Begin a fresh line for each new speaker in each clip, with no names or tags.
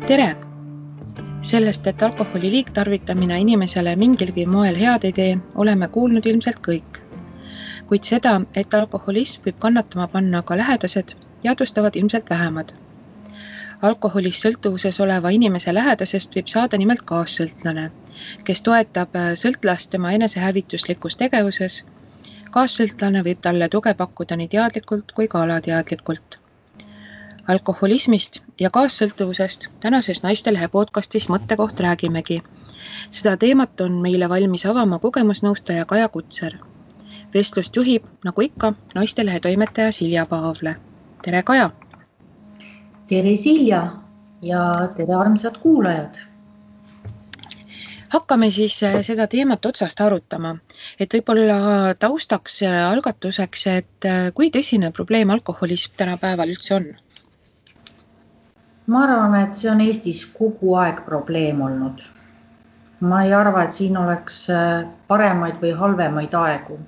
Tere! Sellest, et alkoholi liigtarvitamine inimesele mingilgi moel head ei tee, oleme kuulnud ilmselt kõik. Kuid seda, et alkoholism võib kannatama panna ka lähedased, teadvustavad ilmselt vähemad. Alkoholist sõltuvuses oleva inimese lähedasest võib saada nimelt kaassõltlane, kes toetab sõltlast tema enesehävituslikus tegevuses. Kaassõltlane võib talle tuge pakkuda nii teadlikult kui ka alateadlikult. Alkoholismist ja kaassõltuvusest tänases Naistelehe podcastis Mõttekoht räägimegi. Seda teemat on meile valmis avama kogemusnõustaja Kaja Kutser. Vestlust juhib, nagu ikka, Naistelehe toimetaja Silja Paavle. Tere, Kaja!
Tere, Silja, ja tere, armsad kuulajad!
Hakkame siis seda teemat otsast arutama, et võib-olla taustaks algatuseks, et kui tõsine probleem alkoholism tänapäeval üldse on?
Ma arvan, et see on Eestis kogu aeg probleem olnud. Ma ei arva, et siin oleks paremaid või halvemaid aegu,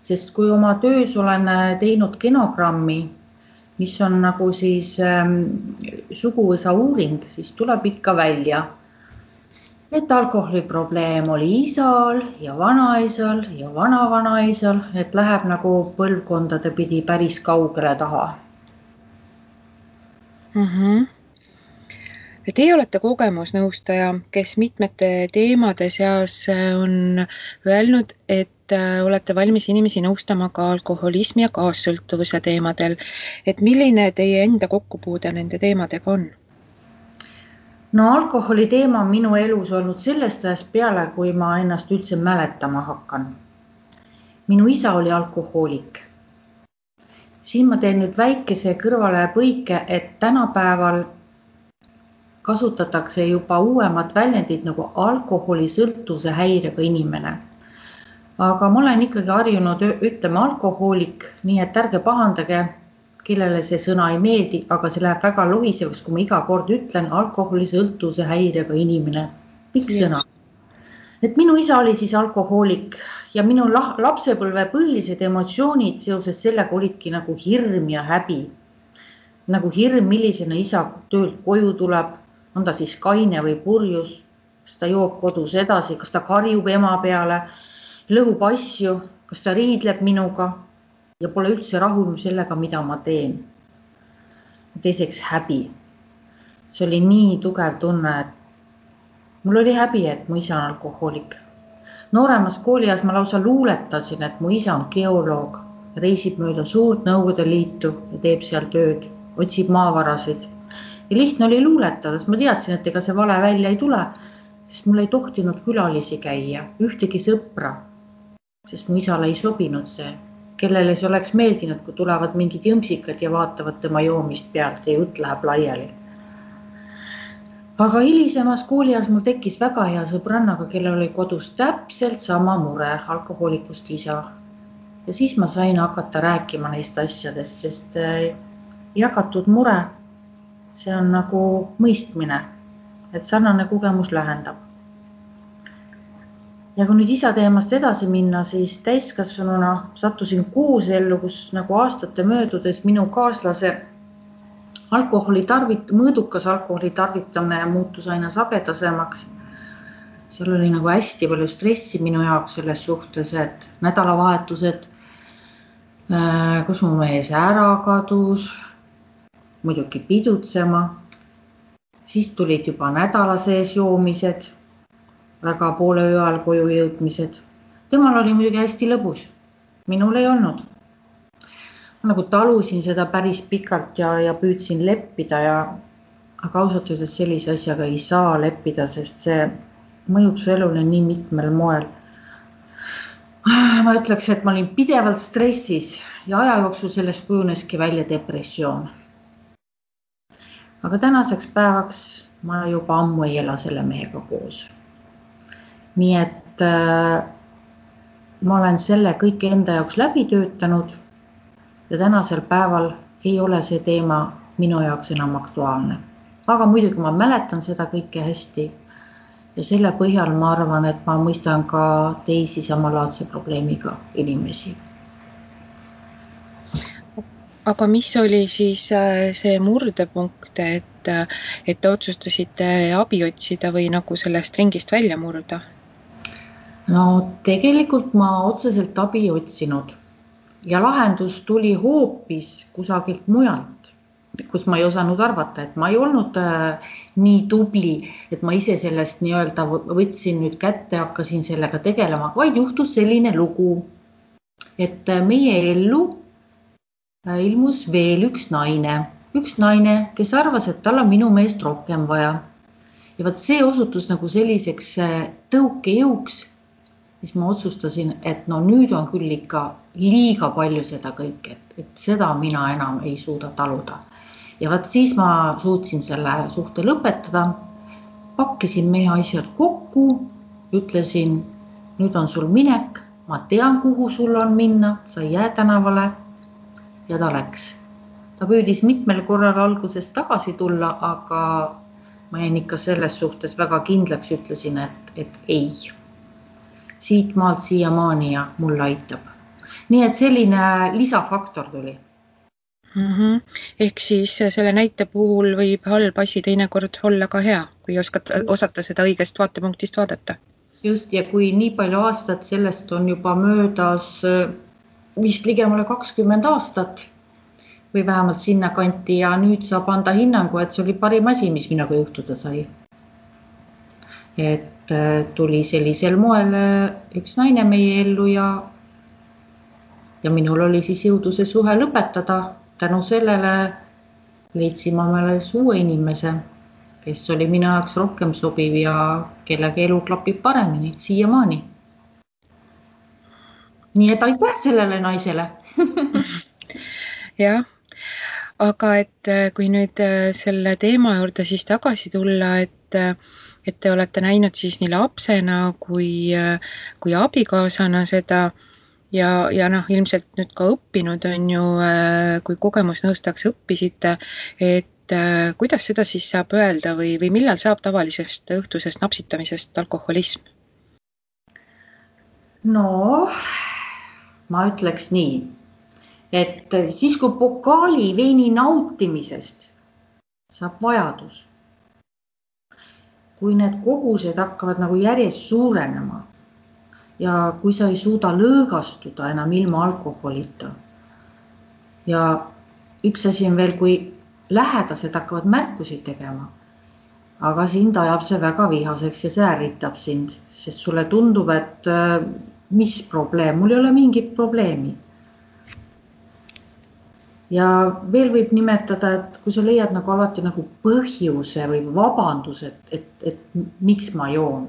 sest kui oma töös olen teinud genogrammi, mis on nagu siis suguvõsa uuring, siis tuleb ikka välja, et alkoholiprobleem oli isal ja vanaisal ja vanavanaisal, et läheb nagu põlvkondade pidi päris kaugele taha.
Teie olete kogemusnõustaja, kes mitmete teemade seas on öelnud, et olete valmis inimesi nõustama ka alkoholismi ja kaassõltuvuse teemadel. Et milline teie enda kokkupuude nende teemadega on?
No alkoholi teema on minu elus olnud sellest ajast peale, kui ma ennast üldse mäletama hakkan. Minu isa oli alkohoolik. Siin ma teen nüüd väikese kõrvale põike, et tänapäeval kasutatakse juba uuemad väljendid nagu alkoholisõltuvuse häirega inimene. Aga ma olen ikkagi harjunud ütlema alkohoolik, nii et ärge pahandage, kellele see sõna ei meeldi, aga see läheb väga lohisevaks, kui ma iga kord ütlen alkoholisõltuvuse häirega inimene. Pikk sõna. Et minu isa oli siis alkohoolik ja minu lapsepõlve põhilised emotsioonid seoses sellega olidki nagu hirm ja häbi. Nagu hirm, millisena isa töölt koju tuleb, on ta siis kaine või purjus, kas ta joob kodus edasi, kas ta karjub ema peale, lõhub asju, kas ta riidleb minuga ja pole üldse rahul sellega, mida ma teen. Teiseks häbi. See oli nii tugev tunne, et mul oli häbi, et mu isa on alkohoolik. Nooremas koolias ma lausa luuletasin, et mu isa on geoloog, reisib mööda suurt Nõukogude Liitu ja teeb seal tööd, otsib maavarasid. Ja lihtne oli luuletada, sest ma teadsin, et ega see vale välja ei tule, sest mul ei tohtinud külalisi käia, ühtegi sõpra, sest mu isale ei sobinud see, kellele see oleks meeldinud, kui tulevad mingid jõmsikad ja vaatavad tema joomist pealt ja jutt läheb laiali. Aga hilisemas koolias mul tekkis väga hea sõbrannaga, kellel oli kodus täpselt sama mure, alkohoolikust isa. Ja siis ma sain hakata rääkima neist asjadest, sest jagatud mure, see on nagu mõistmine, et sarnane kogemus lähendab. Ja kui nüüd isa teemast edasi minna, siis täiskasvanuna sattusin koosellu, kus nagu aastate möödudes minu kaaslase mõõdukas alkoholi tarvitamine muutus aina sagedasemaks. Seal oli nagu hästi palju stressi minu jaoks selles suhtes, et nädalavahetused, kus mu mees ära kadus, muidugi pidutsema, siis tulid juba nädala sees joomised, väga poole öö ajal koju jõudmised. Temal oli muidugi hästi lõbus, minul ei olnud. Ma nagu talusin seda päris pikalt ja püüdsin leppida, aga ausalt öeldes sellise asjaga ei saa leppida, sest see mõjub su elule nii mitmel moel. Ma ütleks, et ma olin pidevalt stressis ja aja jooksul sellest kujuneski välja depressioon. Aga tänaseks päevaks ma juba ammu ei ela selle mehega koos. Nii et ma olen selle kõik enda jaoks läbi töötanud ja tänasel päeval ei ole see teema minu jaoks enam aktuaalne. Aga muidugi ma mäletan seda kõike hästi ja selle põhjal ma arvan, et ma mõistan ka teisi samalaadse probleemiga inimesi.
Aga mis oli siis see murdepunkt, et et te otsustasite abi otsida või nagu sellest ringist välja murda?
No tegelikult ma otseselt abi ei otsinud ja lahendus tuli hoopis kusagilt mujalt, kus ma ei osanud arvata, et ma ei olnud nii tubli, et ma ise sellest nii-öelda võtsin nüüd kätte, hakkasin sellega tegelema, vaid juhtus selline lugu, et meie ellu ilmus veel üks naine, kes arvas, et tal on minu meest rohkem vaja. Ja vaat see osutus nagu selliseks tõukejõuks, mis ma otsustasin, et no nüüd on küll ikka liiga palju seda kõike, et seda mina enam ei suuda taluda. Ja vaat siis ma suutsin selle suhte lõpetada, pakkisin meie asjad kokku, ütlesin, nüüd on sul minek, ma tean, kuhu sul on minna, sa ei jää tänavale. Ja ta läks. Ta püüdis mitmel korral alguses tagasi tulla, aga ma jäin ikka selles suhtes väga kindlaks, ütlesin, et ei. Siit maalt siiamaani ja mul aitab. Nii et selline lisafaktor tuli.
Ehk siis selle näite puhul võib halb asi teinekord olla ka hea, kui osata seda õigest vaatepunktist vaadata.
Just, ja kui nii palju aastat sellest on juba möödas vist ligemale 20 aastat või vähemalt sinna kanti ja nüüd saab anda hinnangu, et see oli parim asi, mis minuga juhtuda sai. Et tuli sellisel moel üks naine meie ellu ja minul oli siis jõudu see suhe lõpetada. Tänu sellele leidsin ma meile uue inimese, kes oli minu jaoks rohkem sobiv ja kellega elu klapib paremini, siiamaani. Nii et aitäh sellele naisele.
Jah, aga et kui nüüd selle teema juurde siis tagasi tulla, et te olete näinud siis nii lapsena kui abikaasana seda ja ilmselt nüüd ka õppinud on ju, kui kogemusnõustajaks õppisite, et kuidas seda siis saab öelda või millal saab tavalisest õhtusest napsitamisest alkoholism?
No, ma ütleks nii, et siis kui pokaali veini nautimisest saab vajadus, kui need kogused hakkavad nagu järjest suurenema ja kui sa ei suuda lõõgastuda enam ilma alkoholita. Ja üks asi on veel, kui lähedased hakkavad märkusi tegema, aga sind ajab see väga vihaseks ja see ärritab sind, sest sulle tundub, et mis probleem, mul ei ole mingit probleemi. Ja veel võib nimetada, et kui sa leiad nagu alati nagu põhjuse või vabandus, et miks ma joon.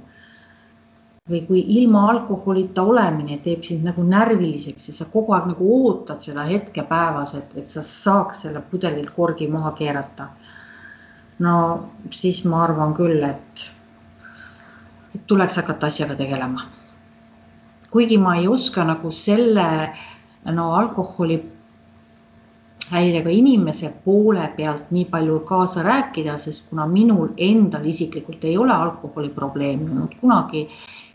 Või kui ilma alkoholita olemine teeb sind nagu närviliseks ja sa kogu aeg nagu ootad seda hetke päevas, et sa saaks selle pudelilt korgi maha keerata. No siis ma arvan küll, et tuleks hakata asjaga tegelema. Kuigi ma ei oska nagu selle alkoholi häirega inimese poole pealt nii palju kaasa rääkida, sest kuna minul endal isiklikult ei ole alkoholi probleemi olnud kunagi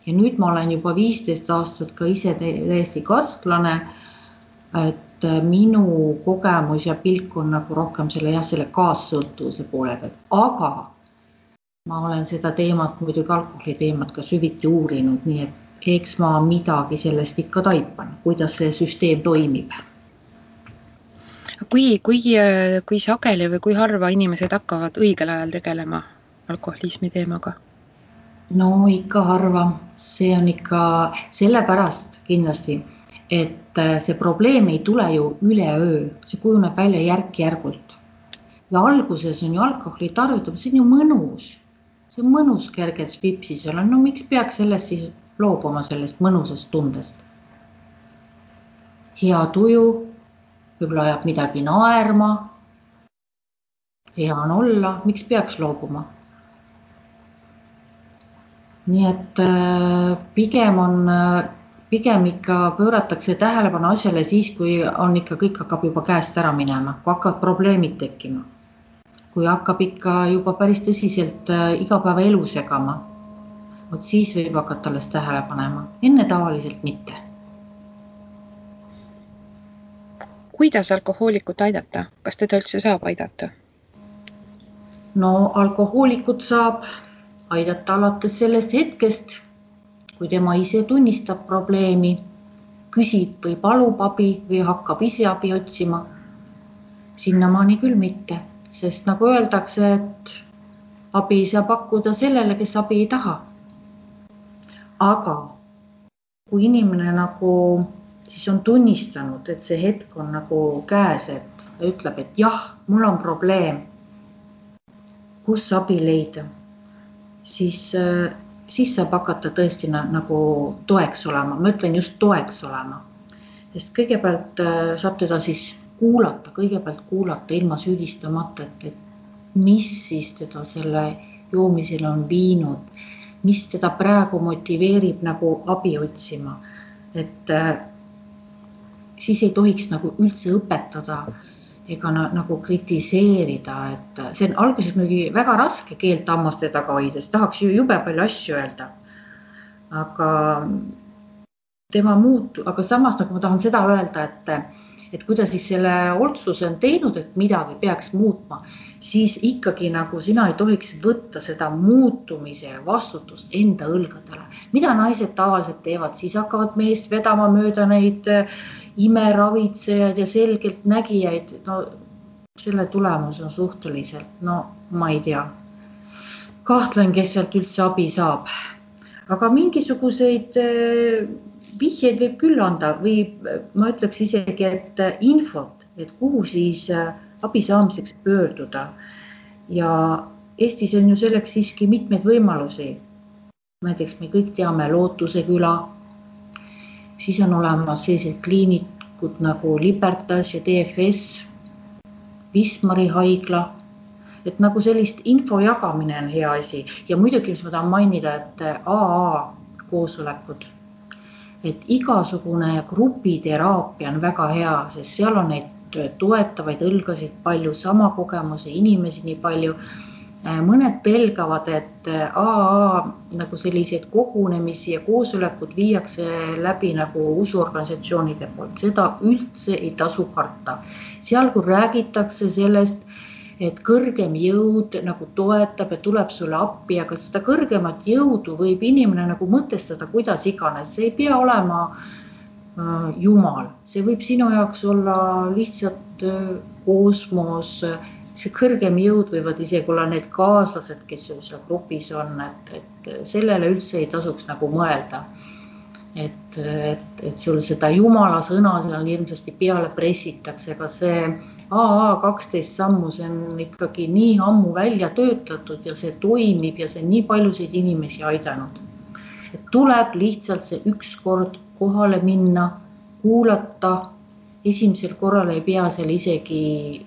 ja nüüd ma olen juba 15 aastat ka ise täiesti karsklane, et minu kogemus ja pilk on nagu rohkem selle kaassõltuvuse poole pealt, aga ma olen seda teemat, muidugi alkoholi teemat ka süviti uurinud, nii et eks ma midagi sellest ikka taipan, kuidas see süsteem toimib.
Kui sageli või kui harva inimesed hakkavad õigel ajal tegelema alkoholismi teemaga?
No ikka harva, see on ikka sellepärast kindlasti, et see probleem ei tule ju üleöö, see kujuneb välja järk-järgult. Ja alguses on ju alkoholi tarvitamine, see on ju mõnus, see on mõnus kergelt vipsis olla, no miks peaks sellest siis loobuma sellest mõnusast tundest? Hea tuju, võib-olla ajab midagi naerma, hea on olla, miks peaks loobuma? Nii et pigem ikka pööratakse tähelepanu asjale siis, kui on ikka kõik hakkab juba käest ära minema, kui hakkavad probleemid tekkima. Kui hakkab ikka juba päris tõsiselt igapäeva elu segama, siis võib hakata alles tähele panema, enne tavaliselt mitte.
Kuidas alkohoolikut aidata? Kas teda üldse saab aidata?
No alkohoolikut saab aidata alates sellest hetkest, kui tema ise tunnistab probleemi, küsib või palub abi või hakkab ise abi otsima. Sinnamaani küll mitte, sest nagu öeldakse, et abi ei saa pakkuda sellele, kes abi ei taha. Aga kui inimene nagu siis on tunnistanud, et see hetk on nagu käes, et ütleb, et jah, mul on probleem, kus abi leida, siis saab hakata tõesti nagu toeks olema. Ma ütlen just toeks olema, sest kõigepealt saab teda siis kõigepealt kuulata ilma süüdistamata, et mis siis teda selle joomisele on viinud, mis teda praegu motiveerib nagu abi otsima. Et siis ei tohiks nagu üldse õpetada ega nagu kritiseerida, et see on alguses muidugi väga raske keelt hammaste taga hoida, sest tahaks ju jube palju asju öelda. Aga samas nagu ma tahan seda öelda, et kui ta siis selle otsuse on teinud, et midagi peaks muutma, siis ikkagi nagu sina ei tohiks võtta seda muutumise vastutust enda õlgadele. Mida naised tavaliselt teevad, siis hakkavad meest vedama mööda neid imeravitsejaid ja selgelt nägijaid. No selle tulemus on suhteliselt, ma ei tea. Kahtlen, kes sealt üldse abi saab. Aga mingisuguseid vihjeid võib küll anda või ma ütleks isegi, et infot, et kuhu siis abi saamiseks pöörduda. Ja Eestis on ju selleks siiski mitmeid võimalusi. Näiteks me kõik teame Lootuse küla, siis on olemas sellised kliinikud nagu Libertas ja DFS, Wismari haigla, et nagu sellist info jagamine on hea asi. Ja muidugi, mis ma tahan mainida, et AA koosolekud, et igasugune grupiteraapia on väga hea, sest seal on neid toetavaid õlgasid palju, sama kogemuse inimesi nii palju. Mõned pelgavad, et AA nagu selliseid kogunemisi ja koosolekud viiakse läbi nagu usuorganisatsioonide poolt. Seda üldse ei tasu karta. Seal kui räägitakse sellest, et kõrgem jõud nagu toetab ja tuleb sulle appi, aga seda kõrgemat jõudu võib inimene nagu mõtestada kuidas iganes. See ei pea olema Jumal, see võib sinu jaoks olla lihtsalt kosmos, see kõrgem jõud võivad isegi olla need kaaslased, kes seal grupis on, et sellele üldse ei tasuks nagu mõelda. Et sul seda Jumala sõna seal hirmsasti peale pressitakse, aga see AA 12 sammu, see on ikkagi nii ammu välja töötatud ja see toimib ja see on nii paljusid inimesi aidanud. Et tuleb lihtsalt see üks kord kohale minna, kuulata, esimesel korral ei pea seal isegi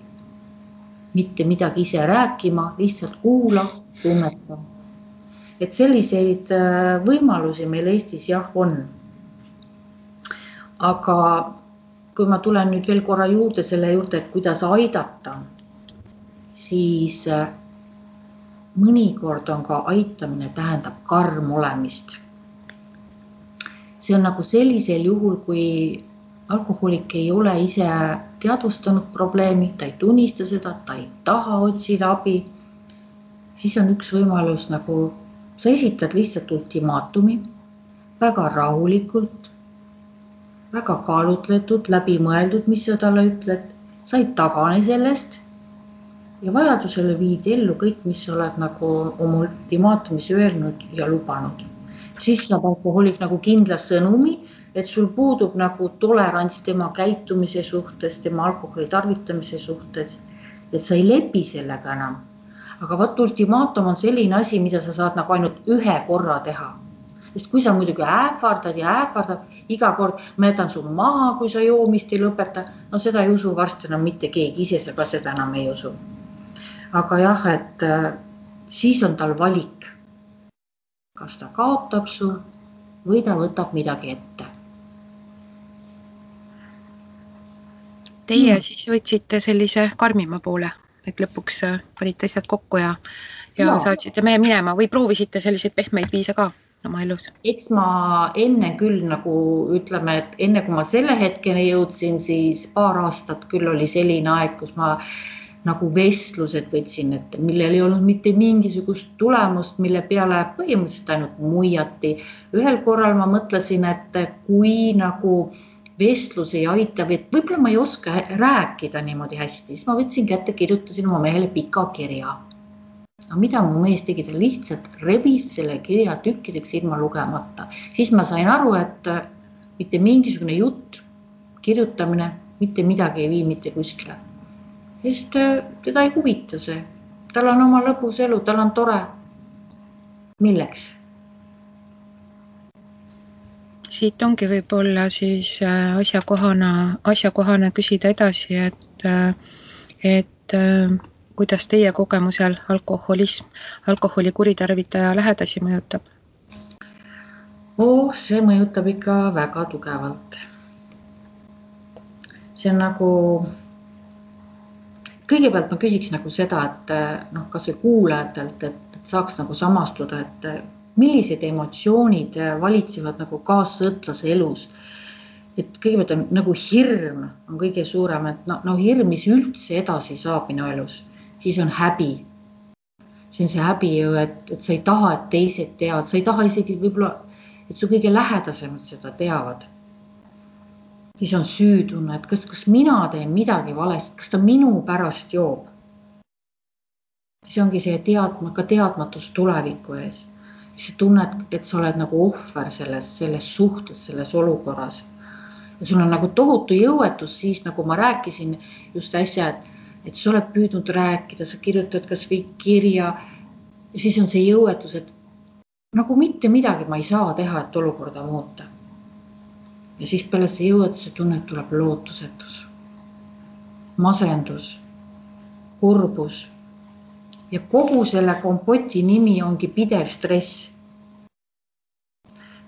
mitte midagi ise rääkima, lihtsalt kuula, tunneta. Et selliseid võimalusi meil Eestis jah on. Aga kui ma tulen nüüd veel korra juurde selle juurde, et kuidas aidata, siis mõnikord on ka aitamine tähendab karm olemist. See on nagu sellisel juhul, kui alkohoolik ei ole ise teadvustanud probleemi, ta ei tunnista seda, ta ei taha otsida abi, siis on üks võimalus nagu sa esitad lihtsalt ultimaatumi väga rahulikult, väga kaalutletud, läbimõeldud, mis sa talle ütled, sa ei tagane sellest ja vajadusele viid ellu kõik, mis sa oled nagu oma ultimaatumis öelnud ja lubanud. Siis saab alkohoolik nagu kindla sõnumi, et sul puudub nagu tolerants tema käitumise suhtes, tema alkoholi tarvitamise suhtes, et sa ei lepi sellega enam. Aga vaat ultimaatum on selline asi, mida sa saad nagu ainult ühe korra teha. Sest kui sa muidugi ähvardad ja ähvardad, iga kord ma jätan su maha, kui sa joomist ei lõpeta, no seda ei usu varsti enam mitte keegi, ise sa ka seda enam ei usu. Aga jah, et siis on tal valik, kas ta kaotab su või ta võtab midagi ette.
Teie siis võtsite sellise karmima poole, et lõpuks panite asjad kokku ja saatsite meie minema või proovisite selliseid pehmeid viise ka oma elus?
Eks ma enne küll nagu ütleme, et enne kui ma selle hetkeni jõudsin, siis paar aastat küll oli selline aeg, kus ma nagu vestlused võtsin ette, millel ei olnud mitte mingisugust tulemust, mille peale põhimõtteliselt ainult muiati. Ühel korral ma mõtlesin, et kui nagu vestlus ei aita, et võib-olla ma ei oska rääkida niimoodi hästi, siis ma võtsin kätte, kirjutasin oma mehele pika kirja. Aga mida mu mees tegi, ta lihtsalt rebis selle kirja tükkideks ilma lugemata. Siis ma sain aru, et mitte mingisugune jutt, kirjutamine, mitte midagi ei vii mitte kuskile. Sest teda ei huvita see. Tal on oma lõbus elu, tal on tore. Milleks?
Siit ongi võib-olla siis asjakohane küsida edasi, et kuidas teie kogemusel alkoholi kuritarvitaja lähedasi mõjutab?
See mõjutab ikka väga tugevalt. See on nagu, kõigepealt ma küsiks nagu seda, et kas või kuulajatelt, et saaks nagu samastuda, et millised emotsioonid valitsevad nagu kaassõltlase elus. Et kõigepealt on nagu hirm on kõige suurem, et hirm, mis üldse edasi saab minu elus. Siis on häbi. See on see häbi ju, et sa ei taha, et teised teavad. Sa ei taha isegi võib-olla, et su kõige lähedasemad seda teavad. Siis on süütunne, et kas mina teen midagi valesti, kas ta minu pärast joob. See ongi see teadmatus tuleviku ees. Siis tunned, et sa oled nagu ohver selles suhtes, selles olukorras. Ja sul on nagu tohutu jõuetus siis, nagu ma rääkisin just äsja, et sa oled püüdnud rääkida, sa kirjutad kas või kirja ja siis on see jõuetus, et nagu mitte midagi ma ei saa teha, et olukorda muuta. Ja siis peale see jõuetuse tunne tuleb lootusetus, masendus, kurbus ja kogu selle kompoti nimi ongi pidev stress.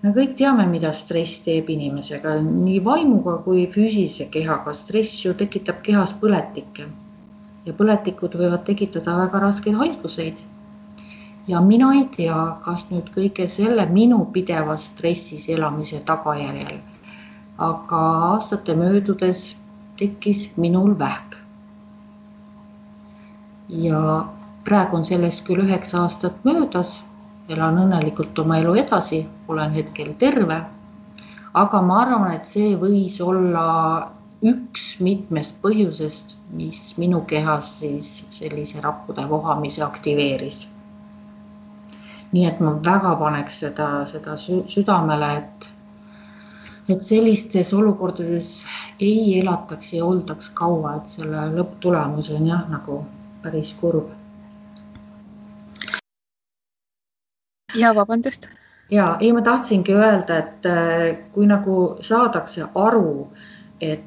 Me kõik teame, mida stress teeb inimesega, nii vaimuga kui füüsilise kehaga. Stress ju tekitab kehas põletikke ja põletikud võivad tekitada väga raskeid haiguseid. Ja mina ei tea, kas nüüd kõige selle minu pideva stressis elamise tagajärjel, aga aastate möödudes tekkis minul vähk. Ja praegu on sellest küll 9 aastat möödas, elan õnnelikult oma elu edasi, olen hetkel terve, aga ma arvan, et see võis olla üks mitmest põhjusest, mis minu kehas siis sellise rappude vohamise aktiveeris. Nii et ma väga paneks seda südamele, et sellistes olukordades ei elataks ja oldaks kaua, et selle lõpptulemus on jah nagu päris kurb.
Ja vabandust.
Ja, ma tahtsingi öelda, et kui nagu saadakse aru, et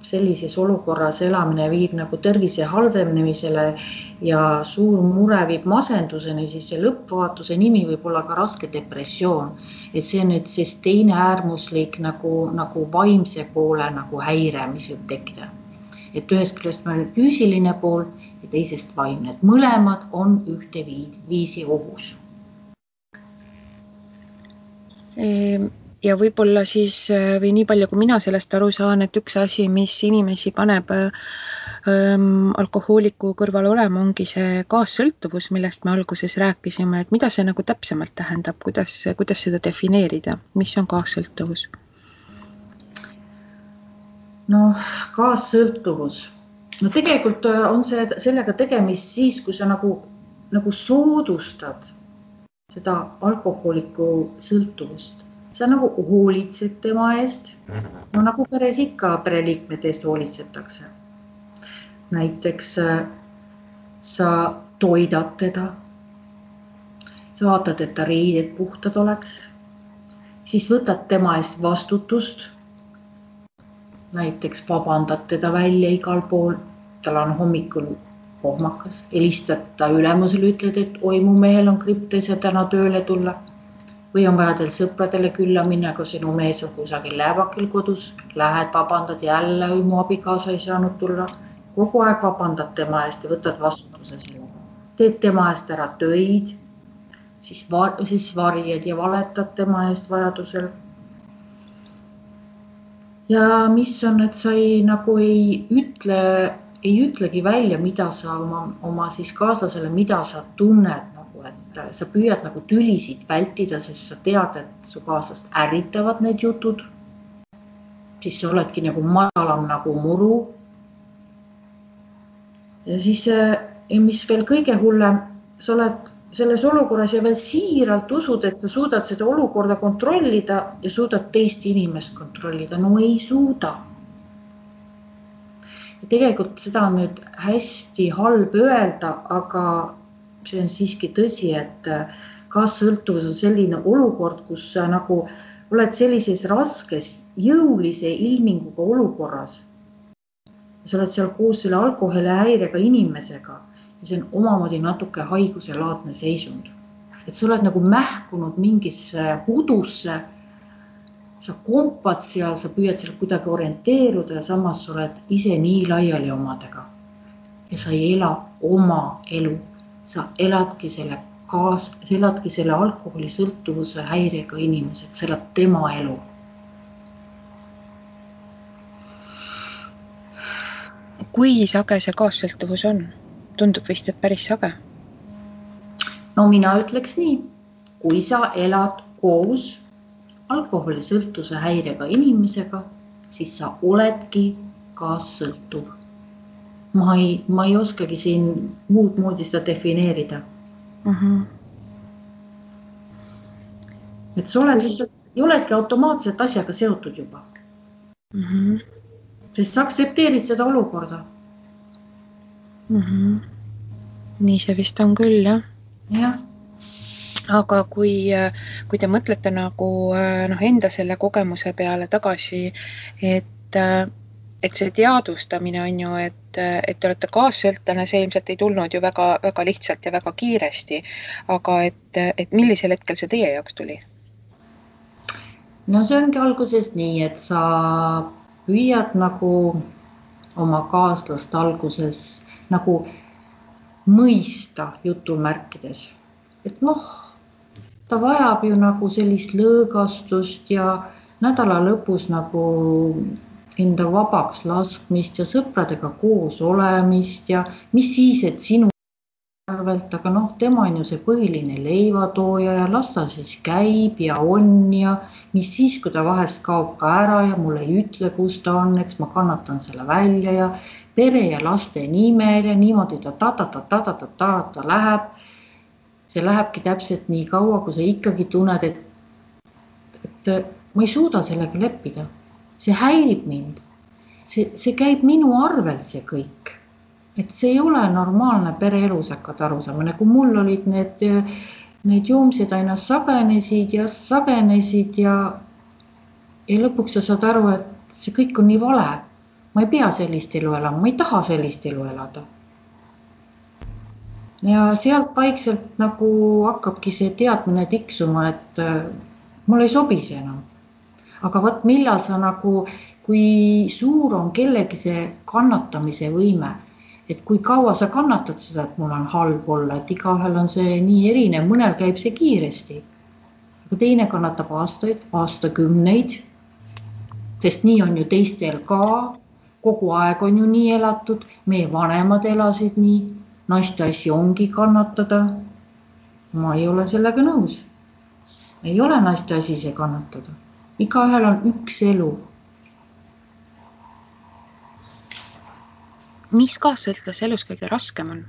sellises olukorras elamine viib nagu tervise halvenemisele ja suur mure viib masenduseni, siis see lõppvaatuse nimi võib olla ka raske depressioon. Et see on nüüd siis teine äärmuslik nagu vaimse poole nagu häire, mis võib tekkida. Et ühest küljest meil füüsiline pool ja teisest vaimne. Et mõlemad on ühte viisi ohus.
Ja võib-olla siis, või nii palju, kui mina sellest aru saan, et üks asi, mis inimesi paneb alkohooliku kõrval olema, ongi see kaassõltuvus, millest me alguses rääkisime, et mida see nagu täpsemalt tähendab, kuidas seda defineerida, mis on kaassõltuvus?
Kaassõltuvus. Tegelikult on sellega tegemist siis, kui sa nagu soodustad seda alkohooliku sõltuvust. Sa nagu hoolitsed tema eest, nagu peres ikka pereliikmete eest hoolitsetakse. Näiteks sa toidad teda, sa vaatad, et ta riided puhtad oleks, siis võtad tema eest vastutust, näiteks vabandad teda välja igal pool, tal on hommikul kohmakas, helistad ta ülemusele, ütled, et oi, mu mehel on kriptes ja täna tööle tulla. Või on vaja teil sõpradele külla minna, kui sinu mees on kusagil läävakil kodus, lähed vabandad jälle, või mu abikaasa ei saanud tulla. Kogu aeg vabandad tema eest ja võtad vastutuse sellega. Teed tema eest ära töid, siis varjed ja valetad tema eest vajadusel. Ja mis on, et sa nagu ei ütle ei ütlegi välja, mida sa oma siis kaaslasele, mida sa tunned nagu, et sa püüad nagu tülisid vältida, sest sa tead, et su kaaslast ärritavad need jutud. Siis sa oledki nagu madalam nagu muru. Ja siis, mis veel kõige hullem, sa oled selles olukorras ja veel siiralt usud, et sa suudad seda olukorda kontrollida ja suudad teist inimest kontrollida. No ei suuda. Ja tegelikult seda on nüüd hästi halb öelda, aga see on siiski tõsi, et kaassõltuvus on selline olukord, kus sa nagu oled sellises raskes, jõulise ilminguga olukorras. Sa oled seal koos selle alkoholihäirega inimesega ja see on omamoodi natuke haiguselaadne seisund. Et sa oled nagu mähkunud mingisse hudusse, sa kompad seal, sa püüad seal kuidagi orienteeruda ja samas sa oled ise nii laiali omadega. Ja sa ei ela oma elu, sa eladki selle alkoholisõltuvuse häirega inimesega, sa elad tema elu.
Kui sage see kaassõltuvus on? Tundub vist, et päris sage.
No mina ütleks nii, kui sa elad koos alkoholisõltuvuse häirega inimesega, siis sa oledki kaassõltuv. Ma ei oskagi siin muud moodi seda defineerida. Et sa oled lihtsalt, ei oledki automaatselt asjaga seotud juba. Sest sa aktsepteerid seda olukorda.
Nii see vist on küll, jah.
Jah.
Aga kui te mõtlete nagu enda selle kogemuse peale tagasi, et see teadvustamine on ju, et te olete kaassõltlane, see ilmselt ei tulnud ju väga, väga lihtsalt ja väga kiiresti, aga et millisel hetkel see teie jaoks tuli?
No see ongi alguses nii, et sa püüad nagu oma kaaslast alguses nagu mõista jutumärkides. Et ta vajab ju nagu sellist lõõgastust ja nädala lõpus nagu enda vabaks laskmist ja sõpradega koos olemist ja mis siis, et sinu arvelt, aga tema on ju see põhiline leivatooja ja las ta siis käib ja on ja mis siis, kui ta vahest kaob ka ära ja mulle ei ütle, kus ta on, eks ma kannatan selle välja ja pere ja laste nimel ja niimoodi ta läheb. See lähebki täpselt nii kaua, kui sa ikkagi tunned, et ma ei suuda sellega leppida. See häirib mind. See käib minu arvelt see kõik. Et see ei ole normaalne pereelu, sa hakkad aru saama. Nagu mul olid need joomsed aina sagenesid ja lõpuks sa saad aru, et see kõik on nii vale. Ma ei pea sellist elu elama, ma ei taha sellist elu elada. Ja sealt vaikselt nagu hakkabki see teadmine tiksuma, et mul ei sobi see enam. Aga võt millal sa nagu, kui suur on kellegi see kannatamise võime, et kui kaua sa kannatad seda, et mul on halb olla, et igahel on see nii erinev, mõnel käib see kiiresti. Aga teine kannatab aastaid, aastakümneid, sest nii on ju teistel ka, kogu aeg on ju nii elatud, meie vanemad elasid nii, naiste asi ongi kannatada. Ma ei ole sellega nõus. Ei ole naiste asi see kannatada. Igaühel on üks elu.
Mis kaassõltlase elus kõige raskem on?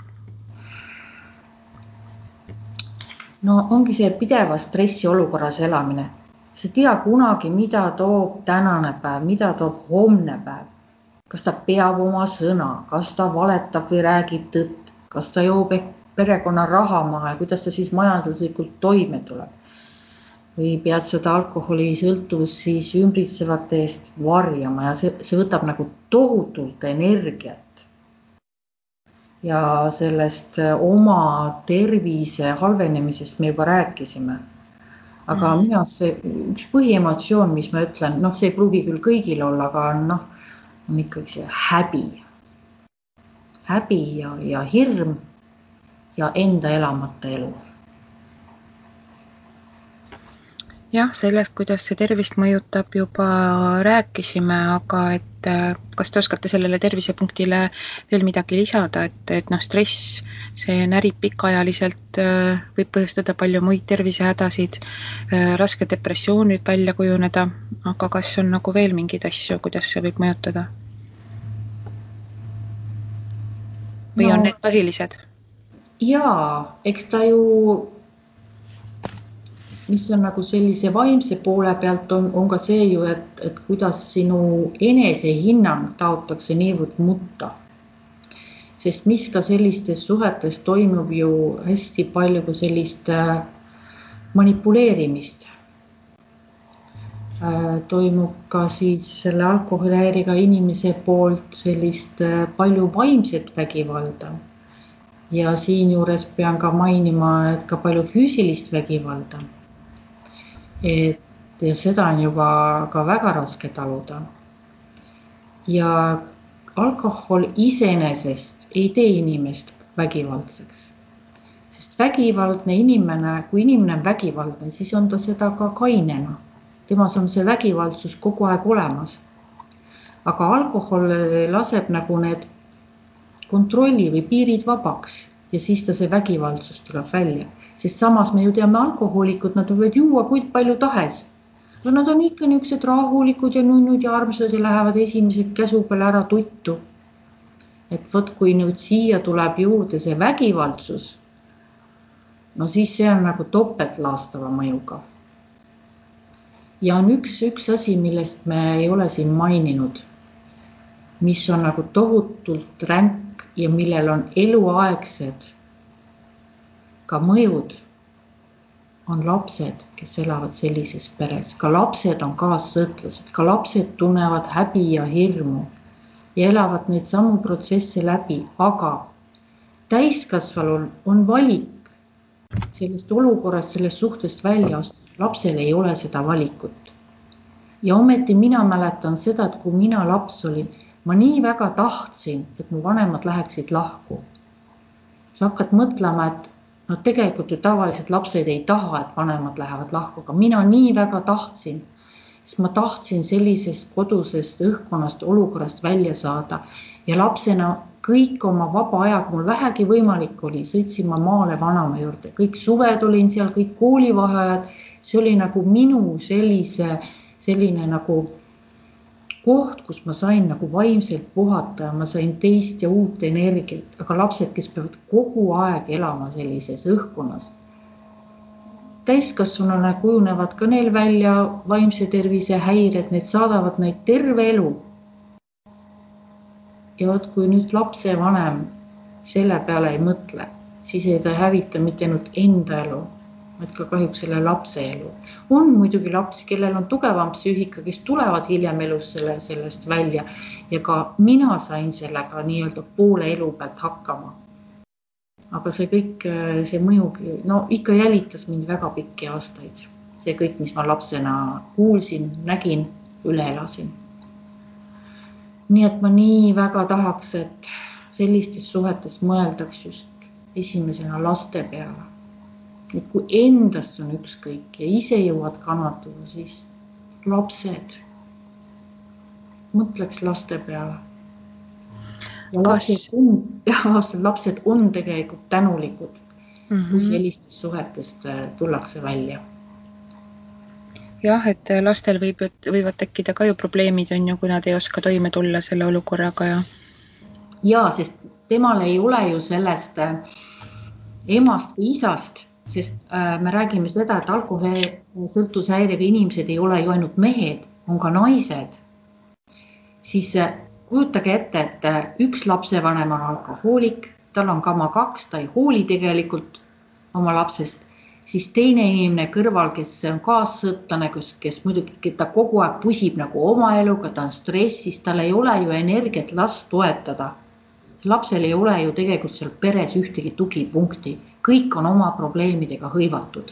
No ongi see pideva stressi olukorras elamine. Sa tea kunagi, mida toob tänane päev, mida toob homne päev. Kas ta peab oma sõna, kas ta valetab või räägib tõtt, kas ta joob perekonna raha maha ja kuidas ta siis majanduslikult toime tuleb. Või pead seda alkoholisõltuvust siis ümbritsevate eest varjama ja see võtab nagu tohutult energiat. Ja sellest oma tervise halvenemisest me juba rääkisime. Aga mina see üks põhiemotsioon, mis ma ütlen, see ei pruugi küll kõigil olla, aga on ikkagi see häbi. Häbi ja hirm ja enda elamata elu.
Jah, sellest, kuidas see tervist mõjutab, juba rääkisime, aga et kas te oskate sellele tervisepunktile veel midagi lisada, et stress, see närib pikaajaliselt, võib põhjustada palju muid tervisehädasid, raske depressioon võib välja kujuneda, aga kas on nagu veel mingeid asju, kuidas see võib mõjutada? Või on need põhilised?
Jaa, eks ta ju, mis on nagu sellise vaimse poole pealt on ka see ju, et kuidas sinu enesehinnang taotakse niivõrd mutta. Sest mis ka sellistes suhetes toimub ju hästi palju ka sellist manipuleerimist. Toimub ka siis selle alkoholihäirega inimese poolt sellist palju vaimset vägivalda. Ja siinjuures pean ka mainima, et ka palju füüsilist vägivalda. Ja seda on juba ka väga raske taluda. Ja alkohol iseenesest ei tee inimest vägivaldseks. Sest vägivaldne inimene, kui inimene on vägivaldne, siis on ta seda ka kainena. Temas on see vägivaldsus kogu aeg olemas. Aga alkohol laseb nagu need kontrolli või piirid vabaks ja siis ta see vägivaldsus tuleb välja. Sest samas me ju teame alkohoolikud, nad võivad juua kui palju tahes. Aga nad on ikka niisugused rahulikud ja nunnud ja armsad ja lähevad esimesed käsu peale ära tuttu. Et võt, kui nüüd siia tuleb juurde see vägivaldsus, no siis see on nagu topeltlaastava mõjuga. Ja on üks asi, millest me ei ole siin maininud, mis on nagu tohutult ränk ja millel on eluaegsed ka mõjud, on lapsed, kes elavad sellises peres. Ka lapsed on kaassõtlased, ka lapsed tunnevad häbi ja hirmu ja elavad neid samu protsesse läbi, aga täiskasvanul on valik sellest olukorrast, sellest suhtest välja astuda. Lapsel ei ole seda valikut. Ja ometi mina mäletan seda, et kui mina laps olin, ma nii väga tahtsin, et mu vanemad läheksid lahku. Sa hakkad mõtlema, et no tegelikult ju tavaliselt lapsed ei taha, et vanemad lähevad lahku, aga mina nii väga tahtsin, sest ma tahtsin sellisest kodusest õhkkonnast, olukorrast välja saada. Ja lapsena kõik oma vaba aja, kui mul vähegi võimalik oli, sõitsin ma maale vanama juurde. Kõik suved olin seal, kõik koolivaheajad. See oli nagu minu selline nagu koht, kus ma sain nagu vaimselt puhata ja ma sain teist ja uut energiat. Aga lapsed, kes peavad kogu aeg elama sellises õhkkonnas. Täiskasvanuna kujunevad ka neil välja vaimse tervise häired, need saadavad neid terve elu. Ja kui nüüd lapsevanem selle peale ei mõtle, siis ei ta hävita mitte ainult enda elu, vaid ka kahjuks selle lapse elu. On muidugi lapsi, kellel on tugevam psüühika, kes tulevad hiljem elus sellest välja ja ka mina sain sellega nii-öelda poole elu pealt hakkama. Aga see kõik, see mõjugi, no ikka jälitas mind väga pikki aastaid. See kõik, mis ma lapsena kuulsin, nägin, üle elasin. Nii et ma nii väga tahaks, et sellistes suhetes mõeldaks just esimesena laste peale. Et kui endast on ükskõik ja ise jõuad kannatada, siis lapsed, mõtleks laste peale. Ja lapsed on tegelikult tänulikud, kui sellistest suhetest tullakse välja.
Jah, et lastel võivad tekkida ka ju probleemid, on ju, kui nad ei oska toime tulla selle olukorraga.
Ja, sest temal ei ole ju sellest emast või isast, sest me räägime seda, et alkoholisõltuvushäirega inimesed ei ole ju ainult mehed, on ka naised. Siis kujutage ette, et üks lapsevanem on alkohoolik, tal on kama 2, ta ei hooli tegelikult oma lapsest. Siis teine inimene kõrval, kes on kaassõtlane, kes muidugi ta kogu aeg pusib nagu oma eluga, ta on stressis, tal ei ole ju energiat last toetada. Lapsel ei ole ju tegelikult seal peres ühtegi tugipunkti. Kõik on oma probleemidega hõivatud.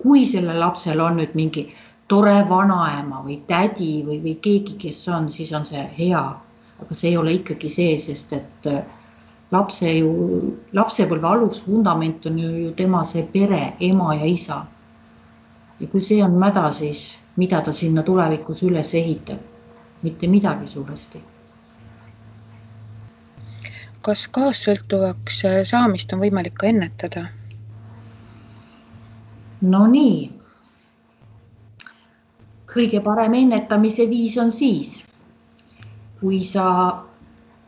Kui selle lapsel on nüüd mingi tore vanaema või tädi või keegi, kes on, siis on see hea. Aga see ei ole ikkagi see, sest et lapsepõlve alusvundament on ju tema see pere, ema ja isa. Ja kui see on mäda, siis mida ta sinna tulevikus üles ehitab? Mitte midagi suuresti.
Kas kaassõltuvaks saamist on võimalik ka ennetada?
No nii. Kõige parem ennetamise viis on siis, kui sa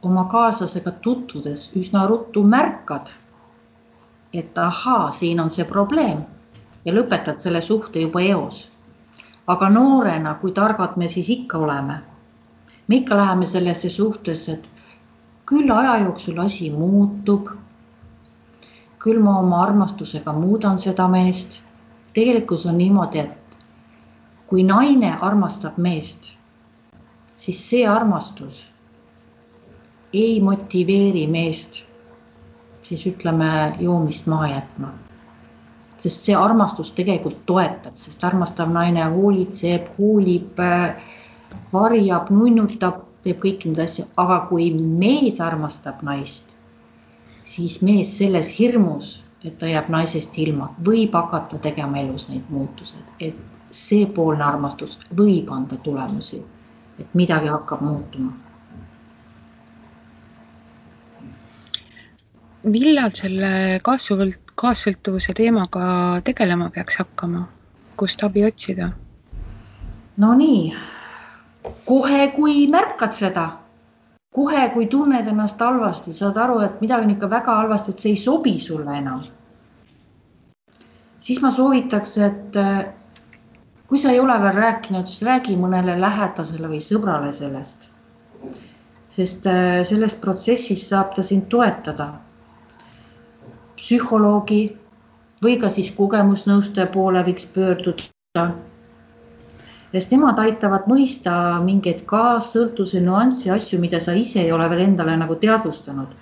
oma kaaslasega tutvudes üsna ruttu märkad, et ahaa, siin on see probleem ja lõpetad selle suhte juba eos. Aga noorena, kui targad me siis ikka oleme, me ikka läheme sellesse suhtesse, et küll aja jooksul asi muutub, küll ma oma armastusega muudan seda meest. Tegelikult on niimoodi, et kui naine armastab meest, siis see armastus ei motiveeri meest, siis ütleme joomist maha jätma. Sest see armastus tegelikult toetab, sest armastav naine hoolitseb, hoolib, varjab, nunnutab, teeb kõik need asja. Aga kui mees armastab naist, siis mees selles hirmus, et ta jääb naisest ilma, võib hakata tegema elus neid muutused. Et see poolne armastus võib anda tulemusi, et midagi hakkab muutuma.
Millal selle kaassõltuvuse teemaga tegelema peaks hakkama? Kust abi otsida?
No nii, kohe kui märkad seda, kohe kui tunned ennast halvasti, saad aru, et midagi on ikka väga halvasti, et see ei sobi sulle enam. Siis ma soovitaks, et kui sa ei ole veel rääkinud, siis räägi mõnele lähedasele või sõbrale sellest. Sest sellest protsessis saab ta sind toetada. Psühholoogi või ka siis kogemusnõustaja poole võiks pöörduda. Sest nemad aitavad mõista mingeid kaassõltuvuse nüanssi asju, mida sa ise ei ole veel endale nagu teadvustanud.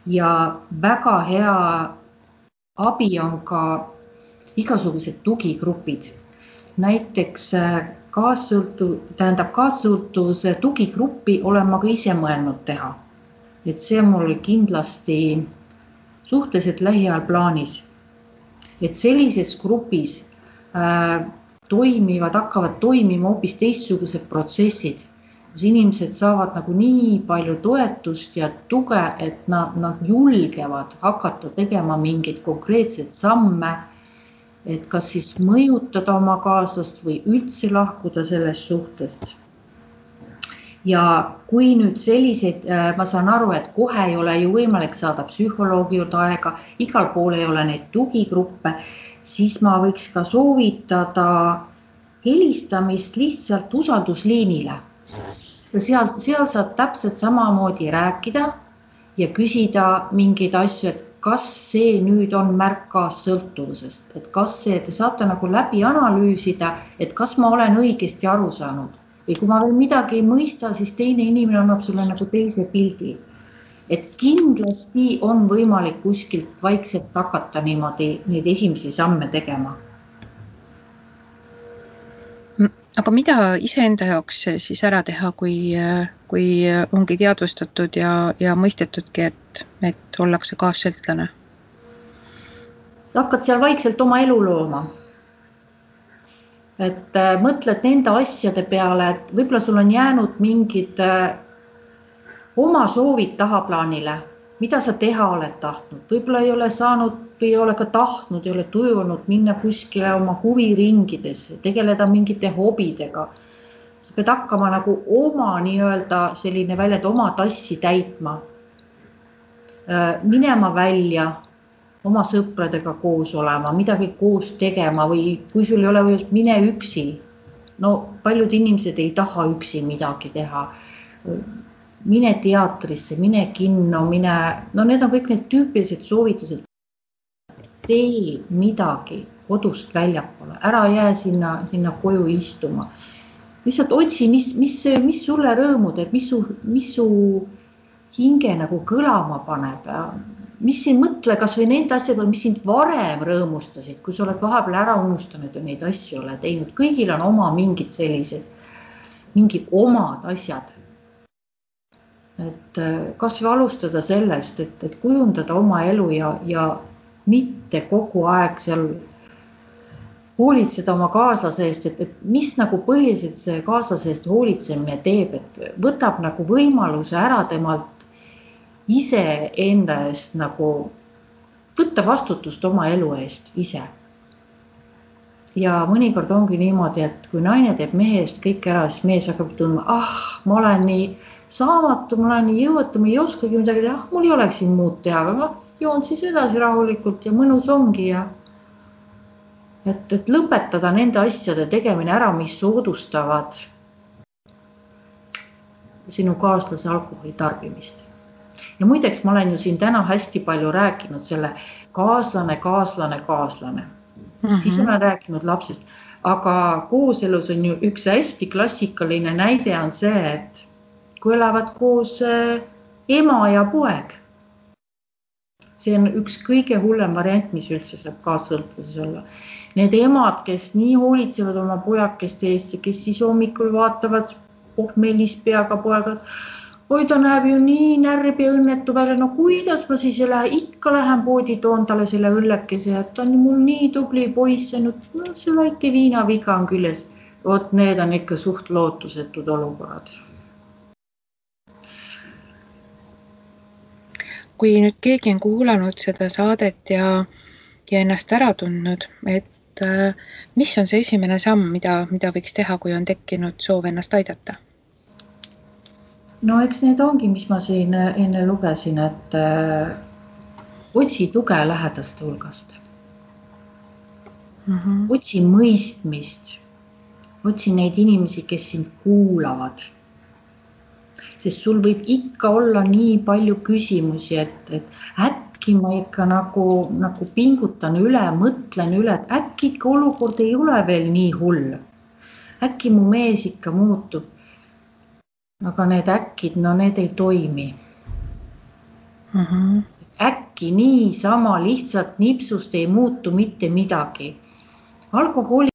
Ja väga hea abi on ka igasugused tugigrupid. Näiteks kaassõltuvuse tugigruppi olen ma ka ise mõelnud teha. Et see on mul kindlasti suhteliselt lähiajal plaanis. Et sellises grupis hakkavad toimima hoopis teistsugused protsessid, kus inimesed saavad nagu nii palju toetust ja tuge, et nad julgevad hakata tegema mingeid konkreetseid samme, et kas siis mõjutada oma kaaslast või üldse lahkuda sellest suhtest. Ja kui nüüd selliseid, ma saan aru, et kohe ei ole ju võimalik saada psühholoogi juurde aega, igal pool ei ole neid tugigruppe, siis ma võiks ka soovitada helistamist lihtsalt usaldusliinile. Seal saad täpselt samamoodi rääkida ja küsida mingeid asju, et kas see nüüd on märk kaassõltuvusest, et kas see, te saate nagu läbi analüüsida, et kas ma olen õigesti aru saanud. Või kui ma veel midagi ei mõista, siis teine inimene annab sulle nagu teise pildi. Et kindlasti on võimalik kuskilt vaikselt hakata niimoodi neid esimesi samme tegema.
Aga mida iseenda jaoks siis ära teha, kui ongi teadvustatud ja mõistetudki, et ollakse kaassõltlane?
Sa hakkad seal vaikselt oma elu looma. Et mõtled nende asjade peale, et võib-olla sul on jäänud mingid oma soovid tahaplaanile, mida sa teha oled tahtnud. Võib-olla ei ole saanud või ei ole ka tahtnud, ei ole tujunud minna kuskile oma huviringidesse, tegeleda mingite hobidega. Sa pead hakkama nagu oma nii-öelda selline välja, et oma tassi täitma. Minema välja, oma sõpradega koos olema, midagi koos tegema või kui sul ei ole või mine üksi. No paljud inimesed ei taha üksi midagi teha. Mine teatrisse, mine kinno, no need on kõik need tüüpilised soovitused. Tee midagi kodust väljapoole, ära jää sinna koju istuma. Lihtsalt otsi, mis sulle rõõmu teeb, mis su hinge nagu kõlama paneb. Mis ei mõtle kas või nende asjade, mis sind varem rõõmustasid, kui sa oled vahepeal ära unustanud ja neid asju ole teinud. Kõigil on oma mingid sellised, mingi omad asjad. Et kas või alustada sellest, et kujundada oma elu ja mitte kogu aeg seal hoolitseda oma kaaslase eest, et mis nagu põhiliselt see kaaslase eest hoolitsemine teeb, et võtab nagu võimaluse ära temalt ise enda eest nagu võtta vastutust oma elu eest ise. Ja mõnikord ongi niimoodi, et kui naine teeb mehe eest kõik ära, siis mees hakkab tundma, ma olen nii saamatu, ma olen nii jõuetu, ma ei oskagi midagi teha, mul ei oleks siin muud teha, aga ma joon siis edasi rahulikult ja mõnus ongi ja et lõpetada nende asjade tegemine ära, mis soodustavad sinu kaaslase alkoholi tarbimist. Ja muideks ma olen ju siin täna hästi palju rääkinud selle kaaslane. Siis olen rääkinud lapsest, aga kooselus on ju üks hästi klassikaline näide on see, et kui elavad koos ema ja poeg. See on üks kõige hullem variant, mis üldse saab kaassõltuses olla. Need emad, kes nii hoolitsevad oma pojakeste eest ja kes siis hommikul vaatavad pohmelis peaga poega, oi ta näeb ju nii närb ja õnnetu välja, no kuidas ma siis ikka lähen poodi toon talle selle õllekese, et ta on mul nii tubli poiss, see väike viinaviga on küljes. Vot need on ikka suht lootusetud olukorrad.
Kui nüüd keegi on kuulanud seda saadet ja ennast ära tundnud, et mis on see esimene samm, mida võiks teha, kui on tekkinud soov ennast aidata?
No eks need ongi, mis ma siin enne lugesin, et otsi tuge lähedaste hulgast. Otsi mõistmist. Otsi neid inimesi, kes sind kuulavad. Sest sul võib ikka olla nii palju küsimusi, et äkki ma ikka nagu pingutan üle, mõtlen üle, et äkki ikka olukord ei ole veel nii hull. Äkki mu mees ikka muutub. Aga need äkkid, no need ei toimi. Äkki nii sama lihtsalt nipsust ei muutu mitte midagi. Alkoholi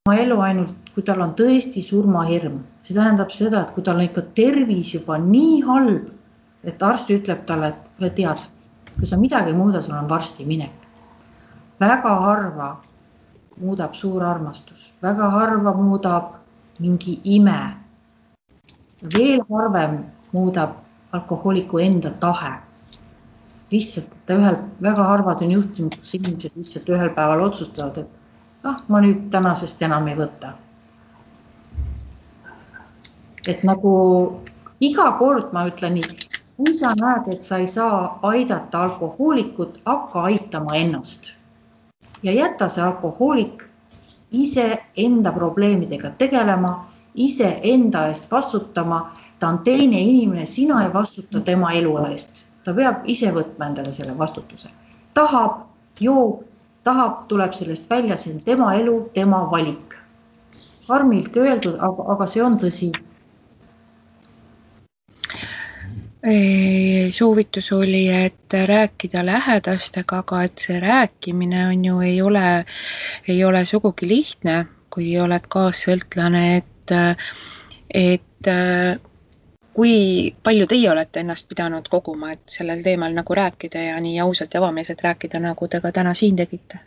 oma elu ainult, kui tal on tõesti surmahirm. See tähendab seda, et kui tal on ikka tervis juba nii halb, et arst ütleb talle, et tead, kui sa midagi muuda, sul on varsti minek. Väga harva muudab suur armastus. Väga harva muudab mingi ime. Veel harvem muudab alkohooliku enda tahe. Lihtsalt, väga harvad on juhtinud, kus inimesed lihtsalt ühel päeval otsustavad, et ma nüüd tänasest enam ei võta. Et nagu iga kord ma ütlen nii, kui sa näed, et sa ei saa aidata alkohoolikut, hakka aitama ennast. Ja jätta see alkohoolik ise enda probleemidega tegelema, ise enda eest vastutama, ta on teine inimene, sina ei vastuta tema elu eest. Ta peab ise võtma endale selle vastutuse. Tahab, joob, tuleb sellest välja, see on tema elu, tema valik. Karmilt öeldud, aga see on tõsi.
Soovitus oli, et rääkida lähedastega, aga et see rääkimine on ju ei ole sugugi lihtne, kui oled kaassõltlane, et kui palju teie olete ennast pidanud koguma, et sellel teemal nagu rääkida ja nii ausalt ja avameelselt rääkida, nagu te ka täna siin tegite?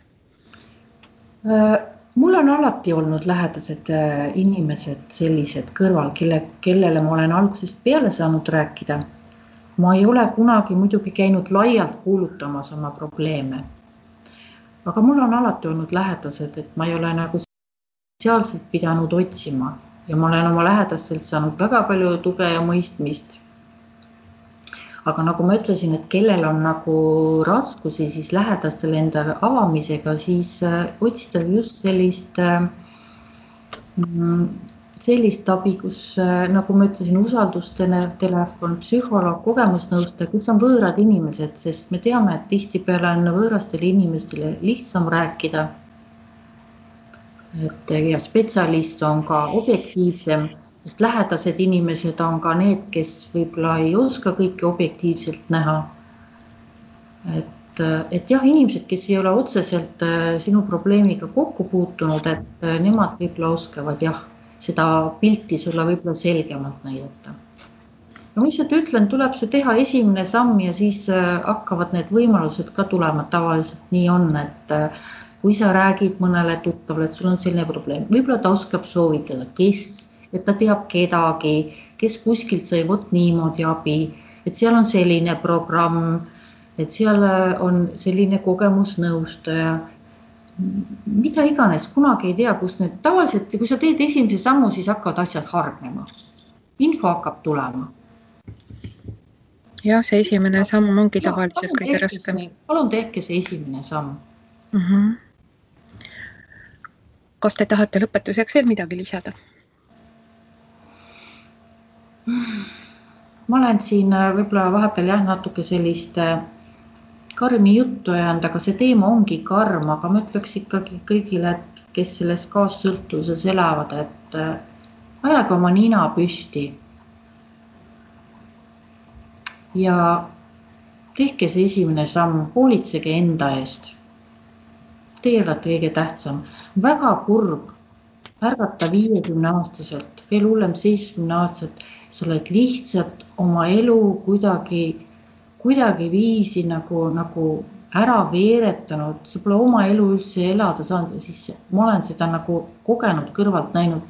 Mul on alati olnud lähedased inimesed sellised kõrval, kellele ma olen algusest peale saanud rääkida. Ma ei ole kunagi muidugi käinud laialt kuulutamas oma probleeme. Aga mul on alati olnud lähedased, et ma ei ole nagu sotsiaalselt pidanud otsima. Ja ma olen oma lähedastelt saanud väga palju tuge ja mõistmist. Aga nagu ma ütlesin, et kellel on nagu raskusi siis lähedastel enda avamisega, siis otsida just sellist abi, kus nagu ma ütlesin, usaldustelefon, psühholoog, kogemusnõustaja, kes on võõrad inimesed, sest me teame, et tihtipeale on võõrastele inimestele lihtsam rääkida. Ja spetsialist on ka objektiivsem, sest lähedased inimesed on ka need, kes võib-olla ei oska kõike objektiivselt näha. Et jah, inimesed, kes ei ole otseselt sinu probleemiga kokku puutunud, et nemad võib-olla oskavad seda pilti sulle võib-olla selgemalt näidata. No mis et ütlen, tuleb see teha esimene samm ja siis hakkavad need võimalused ka tulema, tavaliselt nii on, et kui sa räägid mõnele tuttavale, et sul on selline probleem, võib-olla ta oskab soovitada, et ta teab kedagi, kes kuskilt sai vot niimoodi abi, et seal on selline programm, et seal on selline kogemusnõustaja, mida iganes, kunagi ei tea, kus need tavaliselt, kui sa teed esimese sammu, siis hakkavad asjad hargnema. Info hakkab tulema.
Ja see esimene samm ongi tavaliselt kõige raskem.
Palun tehke see esimene samm.
Kas te tahate lõpetuseks veel midagi lisada?
Ma olen siin võib-olla vahepeal natuke sellist karmi juttu ajanud, aga see teema ongi karm, aga ma ütleks ikkagi kõigile, et kes selles kaassõltuvuses elavad, et ajage oma nina püsti ja tehke see esimene samm, hoolitsege enda eest. Teie olete kõige tähtsam. Väga kurb ärgata 50-aastaselt, veel hullem 70-aastaselt, sa oled lihtsalt oma elu kuidagi viisi nagu ära veeretanud, sa pole oma elu üldse elada saanud ja siis ma olen seda nagu kogenud kõrvalt näinud,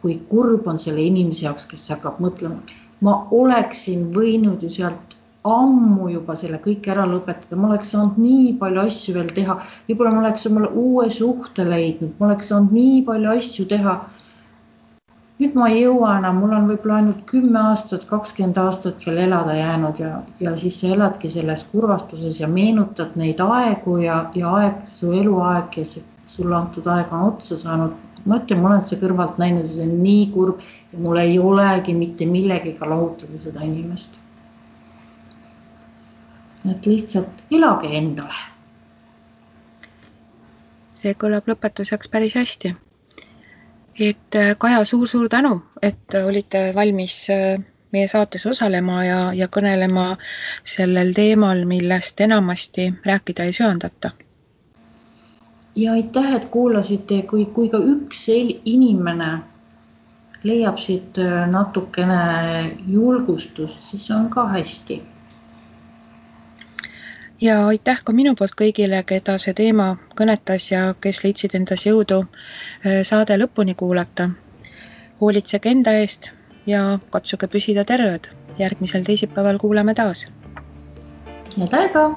kui kurb on selle inimese jaoks, kes hakkab mõtlema. Ma oleksin võinud ju sealt ammu juba selle kõik ära lõpetada, ma oleks saanud nii palju asju veel teha, võib-olla ma oleks omale uue suhte leidnud, ma oleks saanud nii palju asju teha. Nüüd ma ei jõua enam, mul on võib-olla ainult 10 aastat, 20 aastat veel elada jäänud ja siis sa eladki selles kurvastuses ja meenutad neid aegu ja aeg, su eluaeg ja sulle antud aeg on otsa saanud. Ma ütlen, ma olen seda kõrvalt näinud ja see on nii kurb ja mul ei olegi mitte millegiga lahutada seda inimest. Et lihtsalt elage endale.
See kõlab lõpetuseks päris hästi. Et Kaja, suur tänu, et olite valmis meie saates osalema ja kõnelema sellel teemal, millest enamasti rääkida ei söandata.
Ja aitäh, et kuulasite, kui ka üks inimene leiab siit natukene julgustust, siis on ka hästi.
Ja aitäh ka minu poolt kõigile, keda see teema kõnetas ja kes leidsid endas jõudu saade lõpuni kuulata. Hoolitsege enda eest ja katsuge püsida terved. Järgmisel teisipäeval kuuleme taas.
Head aega!